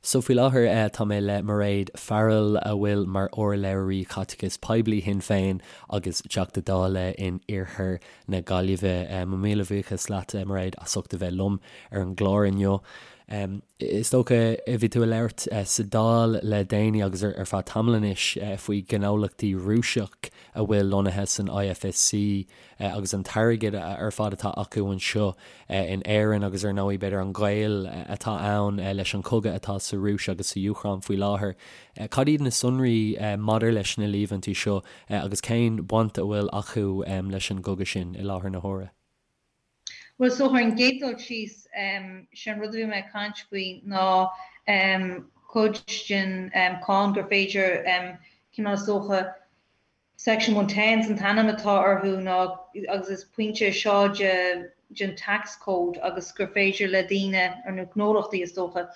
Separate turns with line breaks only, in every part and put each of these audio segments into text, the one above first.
So faoi láthair tá mé le Mairéad Farrell a bhfuil mar urlabhraí Caiteachais Poiblí Shinn Féin agus Teachta Dála in Iarthar na Gaillimhe. Mo mhíle bhuíochas leat Mairéad as ucht a bheith liom ar an gclár inniu. Is dócha bhí tú ag labhairt sa Dáil le déanaí agus ar feadh tamaill anois faoi ghnólachtaí Rúiseach a bhfuil lonnaithe san IFSC agus an t-airgead ar fad atá acu anseo in Éirinn agus ar ndóigh b'fhéidir an gaol atá ann leis an chogadh atá sa Rúis agus sa Úcráin faoi láthair. Cad iad na sonraí maidir leis na líomhaintí seo agus cén bhaint a bhfuil acu leis an gcogadh sin i láthair na huaire?
Bhuel, so ar an gcéad dul síos, sé an rud a bhí mé ag caint faoi ná cuid den cáin gur féidir cineál is dócha Section 110 an t-ainm atá orthu ná agus is pointe é seo de den tax code agus gur féidir le daoine, nó gnólachtaí is dócha,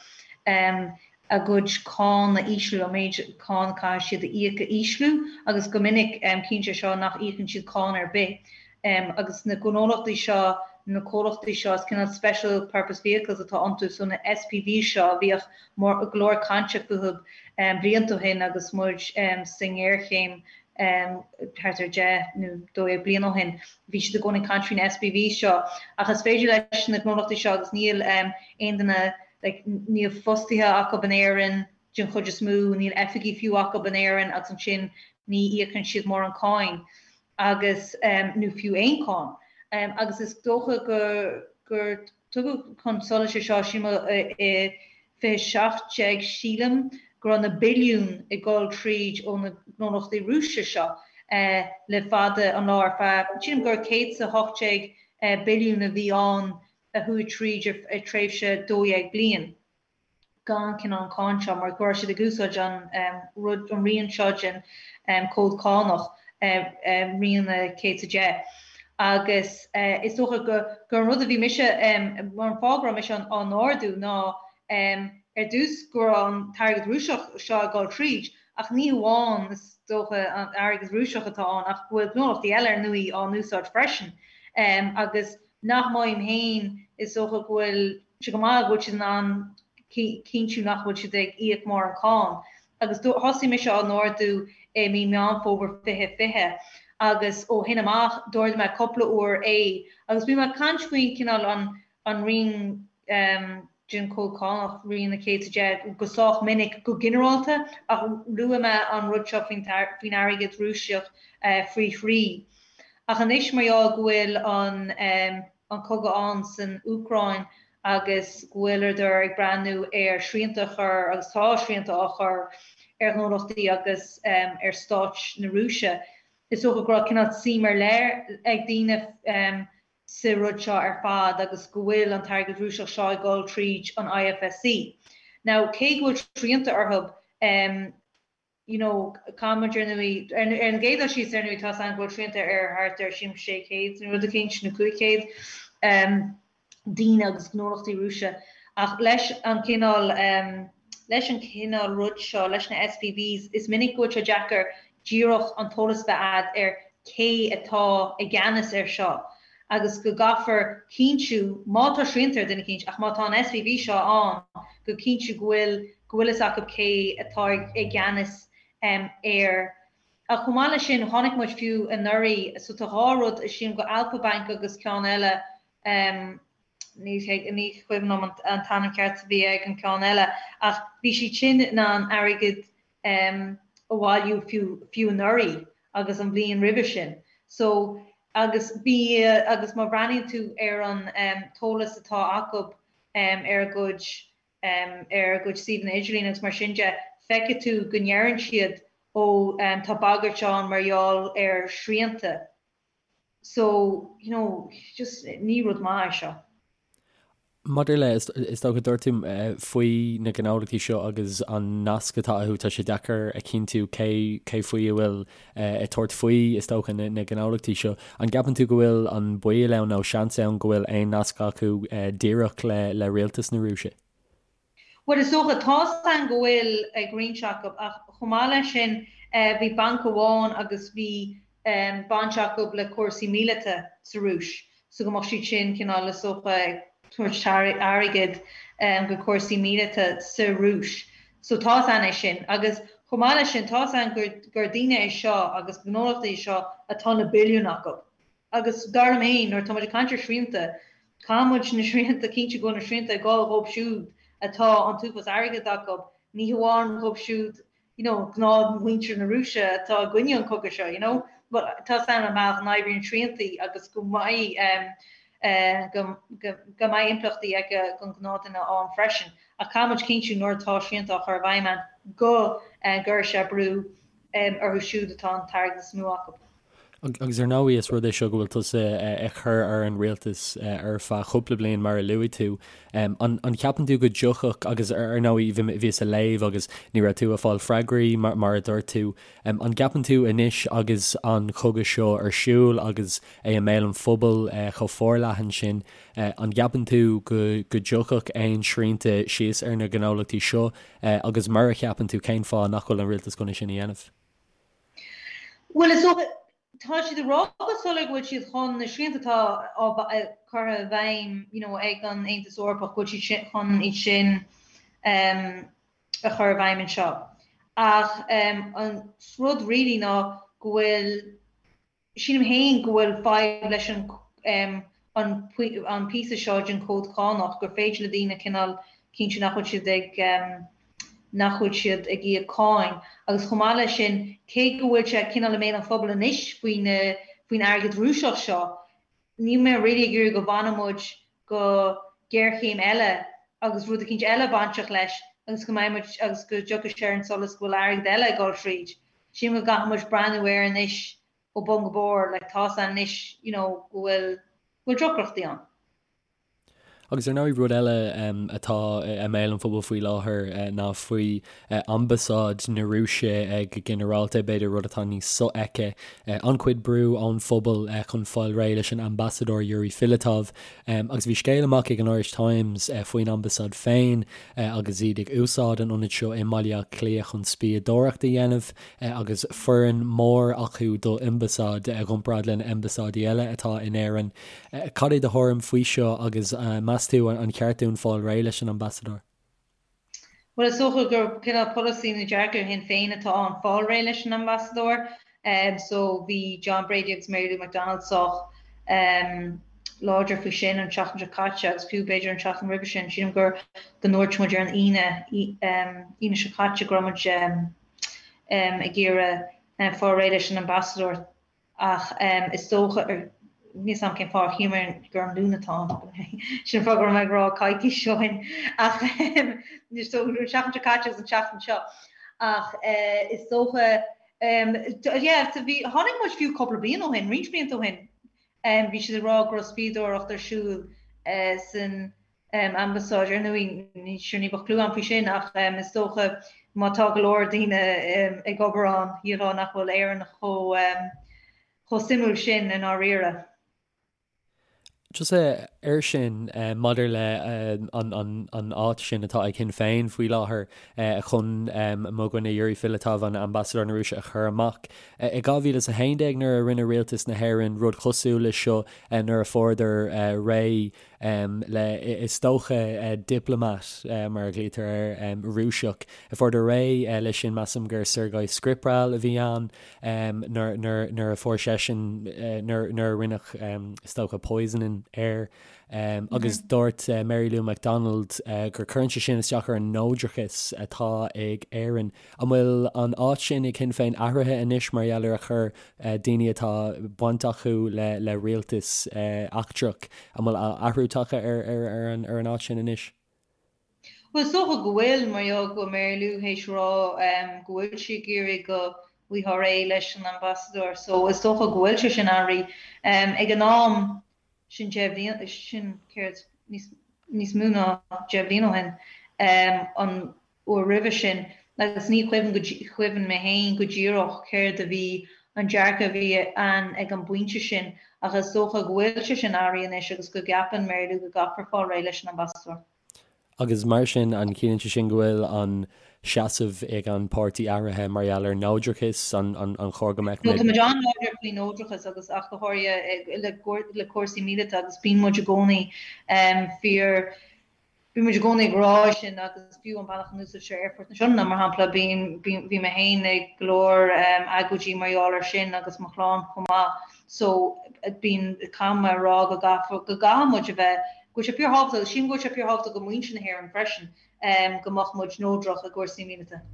a gcuid cáin a ísliú, an méid cáin a caithfidh siad a íoc a ísliú agus go minic ciallaíonn sé seo nach íocann siad cáin ar bith. Agus na gnólachtaí seo, na comhlachtaí seo, is cineál special purpose vehicles atá iontu, so na SPVs seo a bhíodh go leor cainte fúthu blianta ó shin agus muid sa ngéarchéim thart ar 10 nó 12 bliain ó shin. Bhí siad i gcónaí ag caint faoi na SPVs seo. Ach is féidir leis na gnólachtaí seo agus níl aon duine, like, níl fostaithe acu in Éirinn den chuid is mó, níl oifigí fiú acu in Éirinn agus ansin ní íocann siad mórán cáin agus, nó fiú aon cáin. Agus is dócha gur, gur Tugadh chun solais é seo, sílim, i 2017, sílim, go raibh na billiúin ag dul tríd ó na gnólachtaí Rúiseacha seo le fada an lá ar feadh, sílim gur 118 billiún a bhí ann a chuaigh tríd ar tréimhse 12 bliain. gan cineál an cáin seo mar go raibh siad ag úsáid an rud, an rian seo den cód cánach, rian 110. Agus is dócha gur gur an rud a bhí mise, mar an fáth go raibh mise á n-ardú ná ar dtús go raibh an t-airgead Rúiseach seo ag dul tríd, ach ní hamháin is dócha an airgead Rúiseach atá ann ach go bhfuil gnólachtaí eile ar ndóigh á n-úsáid freisin. Agus nach maím féin is dócha go bhfuil sé go maith go bhfuil siad in ann cinntiú nach bhfuil siad ag íoc mórán cáin. Agus thosaigh mise á n-ardú i mí Meán Fómhair 2020 agus ó shin amach d'ardaigh mé cúpla uair é agus bhí mé ag caint faoin cineál an an rian den chód cánach, rian 110, go sách minic go ginearálta ach luaigh mé an rud seo faoin faoin airgead Rúiseach faoi thrí. Ach anois mar gheall go bhfuil an an cogadh ann san Úcráin agus go bhfuileadar ag breathnú ar shrianta a chur, agus tá srianta á chur ar ghnólachtaí agus ar stáit na Rúise, is dócha go raibh cineál suim ar leith ag daoine sa rud seo ar fad agus go bhfuil an t-airgead Rúiseach seo ag dul tríd an IFSC. Now, cé go bhfuil srianta orthu, you know, caithfidh muid ar ndóigh, ar an gcéad dul síos ar ndóigh tá a fhios againn go bhfuil srianta ar thart ar sílim 600 nó rud eicínt nó 500 daoine agus gnólachtaí Rúise ach leis an cineál leis an cineál rud seo, leis na SPVs, is minic go bhfuil sé deacair díreach an t-eolas bheith a'd ar cé atá i gceannas ar seo agus go gcaithfear cinntiú, má tá srianta ar duine eicínt, ach má tá an SPV seo ann, go cinntiú go bhfuil, go bhfuil fhios acu cé atá i gceannas air. Ach chomh maith leis sin, chonaic muid fiú anuraidh, so tá dhá rud, sílim go Alfa Bank agus ceann eile, ní cuimhin liom an t-ainm ceart a bhí ag an ceann eile, ach bhí siad sin in ann airgead a bhailiú fiú anuraidh agus an bhliain roimhe sin. So, agus bhí, agus má bhreathnaíonn tú ar an t-eolas atá acu ar a gcuid, ar a gcuid suíomhanna idirlín agus mar sin de, feicfidh tú go ndeireann siad, ó, tá bagairt ann mar gheall ar shrianta. So, you know, just ní rud maith é seo.
Maidir le, is dócha, dúirt tú faoi na gnólachtaí seo agus an nasc atá acu, tá sé deacair a chinntiú cé cé faoi a bhfuil ag tabhairt faoi, is dócha, na gnólachtaí seo. An gceapann tú go bhfuil an baol ann nó seans ann go bhfuil aon nasc acu díreach le le rialtas na Rúise?
Bhuel, is dócha, tá's againn go bhfuil ag roinnt acu, ach chomh maith leis sin, bhí banc amháin agus bhí baint acu le cúrsaí míleata sa Rúis, so go mbeadh siad sin cineál, is dócha, ag tabhairt airgead go cúrsaí míleata sa Rúis. So tá's a'inn é sin. Agus chomh maith leis sin, tá's a'inn gur gur daoine é seo agus gnólachtaí é seo atá na billiúin acu. Agus dar liom féin, nuair atá muid ag caint ar shrianta, caithfidh muid na srianta, cinntiú go bhfuil na srianta ag dul dhóibh siúd atá an t-uafás airgid acu, ní hamháin dhóibh siúd you know, gnáthmhuintir na Rúise atá i gcoinne an chogaidh seo, you know. But tá's a'inn an bealach a n-oibríonn sriantaí agus go mbeidh eh, go, go, go mbeidh impleachtaí aige don ghnáthdhuine ann freisin. Ach caithfidh muid cinntiú nuair atá srianta á chur i bhfeidhm ann go eh, gcuirfidh sé brú em, orthu siúd atá an t-airgead is mó acu.
Agus ar ndóigh is rud é seo go bhfuil tusa ag cur ar an rialtas ar feadh cúpla bliain mar a luaigh tú. An gceapann tú go dtiocfadh, agus ar ndóigh bhíos ag léamh agus ní raibh tú ag fáil freagraí mar a dúirt tú, an gceapann tú anois agus an cogadh seo ar siúl agus é i mbéal an phobail chomh forleathan sin, an gceapann tú go dtiocfadh aon srianta síos ar na gnólachtaí seo agus mura cheapann tú cén fáth nach bhfuil an rialtas chun é sin a dhéanamh?
Bhuel, is dócha, tá siad ag rá go soiléir go bhfuil siad chun na srianta atá á curtha i bhfeidhm you know ag an Aontas Eorpach, go bhfuil siad chun iad sin a chur i bhfeidhm anseo. Ach an rud really ná go bhfuil Sílim féin go bhfuil fadhb leis an an píosa seo den chód cánach, gur féidir le daoine cineál cinntiú nach bhfuil siad ag nach bhfuil siad ag íoc cáin. Agus chomh maith leis sin, cé go bhfuil sé cineál i mbéal an phobail anois faoi na faoin airgead Rúiseach seo, níl mé really ag iarraidh go bhfanfaidh muid go géarchéim eile agus rud eicínt eile bainteach leis agus go mbeidh muid agus go dtiocfaidh sé ar an solas go bhfuil airgead eile ag dul tríd. Sílim go gcaithfidh muid breathnú air anois ó bun go barr, like tá's a'inn anois you know go bhfuil go bhfuil deacrachtaí ann.
Agus ar ndóigh rud eile atá i mbéal an phobail faoi láthair ná faoi ambasáid na Rúise go ginearálta, b'fhéidir rud atá níos sofheicthe. An-chuid brú ón phobal chun fáil réidh leis an ambasadóir Yuri Filatov. Agus bhí scéal amach ag an Irish Times faoin ambasáid féin agus iad ag úsáid an ionaid seo i mBaile Átha Cliath chun spiadóireacht a dhéanamh agus foireann mór acu do ambasáid i gcomparáid le na ambasáidí eile atá in Éirinn. Cad é do thuairim faoi seo agus meas tú an cheart dúinn fáil réidh leis an ambasadóir?
Bhuel, is dócha gur cineál polasaí nó dearcadh Shinn Féin atá ann fáil réidh leis an ambasadóir. So bhí John Brady agus Mary Lou McDonald sách láidir faoi sin an tseachtain seo caite agus fiú b'fhéidir an tseachtain roimhe sin. Sílim gur go ndúirt muid ar an Aoine, Aoine seo caite go raibh muid ag iarraidh fáil réidh leis an ambasadóir. Ach is dócha, níl 'fhios a'm cén fáth ar shíl mé gur an Luan atá ann, sin an fáth go raibh mé ag rá coicís ó shin, ach so an tseachtain seo caite agus an tseachtain seo. Ach is dócha, yeah, so bhí, tháinig muid fiú cúpla bliain ó shin, roinnt blianta ó shin, bhí siad ag rá go raibh spiadóireacht ar siúl san ambasáid. Ar ndóigh, ní sure ní bheadh clue agam faoi sin ach is dócha má tá go leor daoine ag obair ann, shílfeá nach bhfuil Éirinn chomh chomh suimiúil sin i ndáiríre.
Just air sin, maidir le an áit sin atá ag Sinn Féin faoi láthair chun mo dhuine Yuri Filatov, an Ambasadóir na Rúise a chur amach. I 2011 nuair a rinne rialtas na hÉireann rud cosúil leis seo nuair a fuaireadar réidh le, is dócha, diplomat, mar a ghlaoitear air, Rúiseach. Fuaireadar réidh leis sin, measaim gur Sergei Skripal a bhí ann nuair a fuair seisean, nuair a rinneadh, is dócha, poisoning air. Agus dúirt Mary Lou McDonald gur cuireann sé sin isteach ar an neodrachas atá ag Éirinn. An bhfuil an áit sin ag Sinn Féin athraithe anois mar gheall ar a chuir daoine atá baint acu le rialtas eachtrach, an bhfuil athrú tagtha ar an áit sin anois?
Bhuel, is dócha go bhfuil, mar gheall go bhfuil Mary Lou théis rá go bhfuil sí ag iarraidh go bhfaighfeá réidh leis an ambasadóir, so is dócha go bhfuil sé sin athraithe. Ag an am sin deich mbliana, sin céard, níos mó ná deich mbliana ó shin, an uair roimhe sin agus ní chuimhin go chuimhin mé féin go díreach céard a bhí an dearcadh a bhí ann ag an bpointe sin ach is dócha go bhfuil sé sin athraithe anois agus go gceapann Mary Lou go gcaithfear fáil réidh leis an ambasadóir.
Agus mar sin, an gciallaíonn sé sin go bhfuil an seasamh ag an páirtí athraithe mar gheall ar neodrachas, an an chóir go mbeadh
No, tá muid an-láidir faoi neodrachas agus ach go háirithe le le cúrsaí míleata agus bíonn muid i gcónaí fíor. Bíonn muid i gcónaí ag rá sin agus fiú an bealach a n-úsáidtear Aerfort na Sionainne, mar shampla, bíonn, bíonn, bhí mé féin ag go leor agóidí mar gheall air sin agus mo chlann chomh maith so bíonn, caithfidh mé a rá go gcaithfear, go gcaithfidh muid a bheith, go bhfuil sé fíorthábhachtach agus sílim go bhfuil sé fíorthábhachtach do mhuintir na hÉireann freisin go mbeadh muid neodrach i gcúrsaí míleata.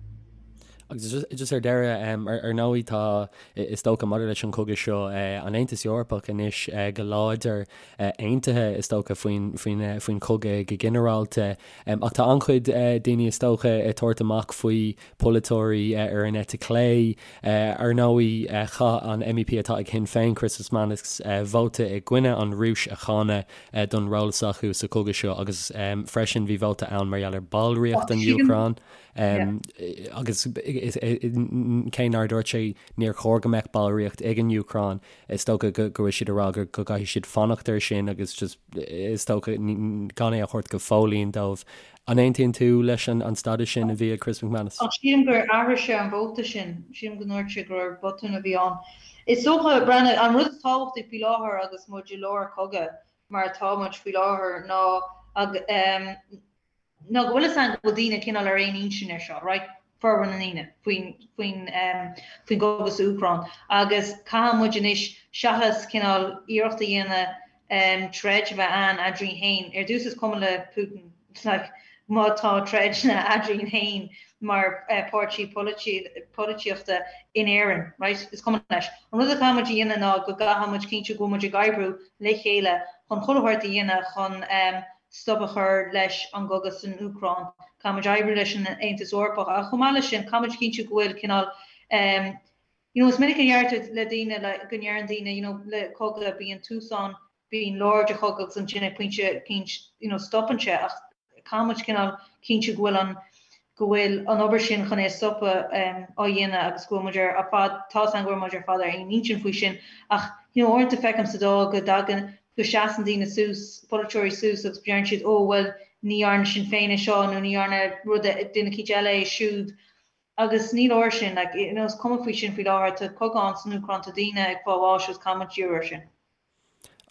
Agus just ar deireadh, ar ndóigh tá, is dócha maidir leis an chogadh seo, an Aontas Eorpach anois go láidir aontaithe is dócha faoin, faoin, faoin chogadh go ginearálta. Ach tá an-chuid daoine is dócha ag tabhairt amach faoi polaiteoirí ar an eite chlé. Ar ndóigh chaith an MEP atá ag Shinn Féin, Chris McManus, vóta i gcoinne an Rúis a cháineadh don ról s'acu sa chogadh seo agus freisin bhí vóta ann mar gheall ar ballraíocht an Úcráin. Agus cé nár dúirt sé níor chóir go mbeadh ballraíocht ag an Úcráin, is dócha go bhfuil siad ag rá go gcaithfidh siad fanacht air sin agus just is dócha gan é a thabhairt go fóillín dóibh. An aontaíonn tú leis an stádas sin a bhí ag Chris McManus?
Ach sílim gur athraigh sé an vóta sin. Sílim go ndúirt sé gur botún a bhí ann. Is dócha, Breandán, an rud is tábhachtaí faoi láthair agus muid i lár cogadh mar atá muid faoi láthair ná ná go bhfuil fhios againn go bhfuil daoine cineál ar aon intinn ar seo, right, formhór na ndaoine, faoin, faoin, faoin gcogadh sa Úcráin agus caithfidh muid anois seachas cineál iarracht a dhéanamh troid a bheith ann eadrainn féin, ar dtús is cuma le Putin like má tá troideanna eadrainn féin mar páirtí polaitíochta in Éirinn, right, is cuma leis. An rud a chaithfidh muid a dhéanamh ná go gcaithfidh muid cinntiú go bhfuil muid ag oibriú le chéile chun chuile shórt a dhéanamh chun stop a chur leis an gcogadh san Úcráin. Caithfidh muid oibriú leis an Aontas Eorpach ach chomh maith leis sin caithfidh muid cinntiú go bhfuil cineál you know is minic a deirtear le daoine like go ndeireann daoine you know le cogadh bíonn tús ann, bíonn lár de chogadh agus ansin ag pointe eicínt you know stopann sé ach caithfidh muid cineál cinntiú go bhfuil an go bhfuil an obair sin chun é a stopadh á dhéanamh agus go bhfuil muid ar fad, tá's agam go bhfuil muid ar fad ar aon intinn faoi sin ach you know uaireanta feicim sa Dáil go dtagann, go seasann daoine suas, polaiteoirí suas agus deireann siad oh bhuel ní dhearna Sinn Féin é seo nó ní dhearna rud duine eicínt eile é siúd agus ní leor sin, like you know is cuma faoi sin faoi láthair, tá cogadh ann san Úcráin, tá daoine ag fáil bháis agus caithfidh muid díriú air sin.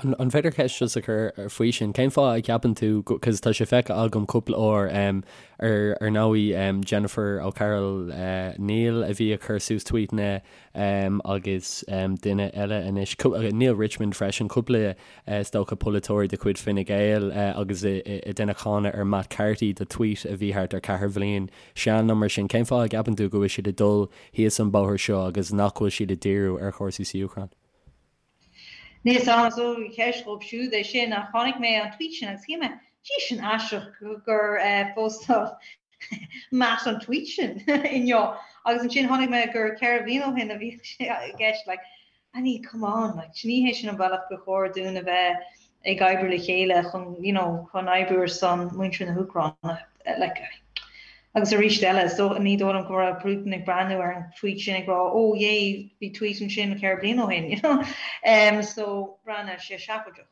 An féidir ceist just a chur faoi sin? Cén fáth a gceapann tú, cos tá sé feicthe agam cúpla uair, ar ar ndóigh Jennifer O'Carroll Neil a bhí ag cur suas tweetanna agus duine eile anois, Neale Richmond freisin, cúpla is dócha polaiteoirí de chuid Fine Gael agus ag déanamh cáineadh ar Matt Carthy do tweet a bhí thart ar ceathair bhliain sean nó mar sin. Cén fáth a gceapann tú go bhfuil siad ag dul thíos an bóthar seo agus nach bhfuil siad ag díriú ar chúrsaí sa Úcráin?
Níl 'fhios a'm, is dóigh ceist dhóibh siúd é sin ach chonaic mé an tweet sin agus shíl mé, gee sin aisteach gur phostáil Matt an tweet sin inniu agus ansin chonaic mé gur 4 bhliain ó shin a bhí sé i gceist like I mean come on like ní hé sin an bealach gur chóir dúinn a bheith ag oibriú le chéile chun you know chun oibriú ar son muintir na hÚcráine like agus arís eile so ní dóigh liom go raibh Putin ag breathnú ar an tweet sin ag rá oh yay bhí tweet ansin 4 bliain ó shin you know um, so breathnaíonn sé seafóideach.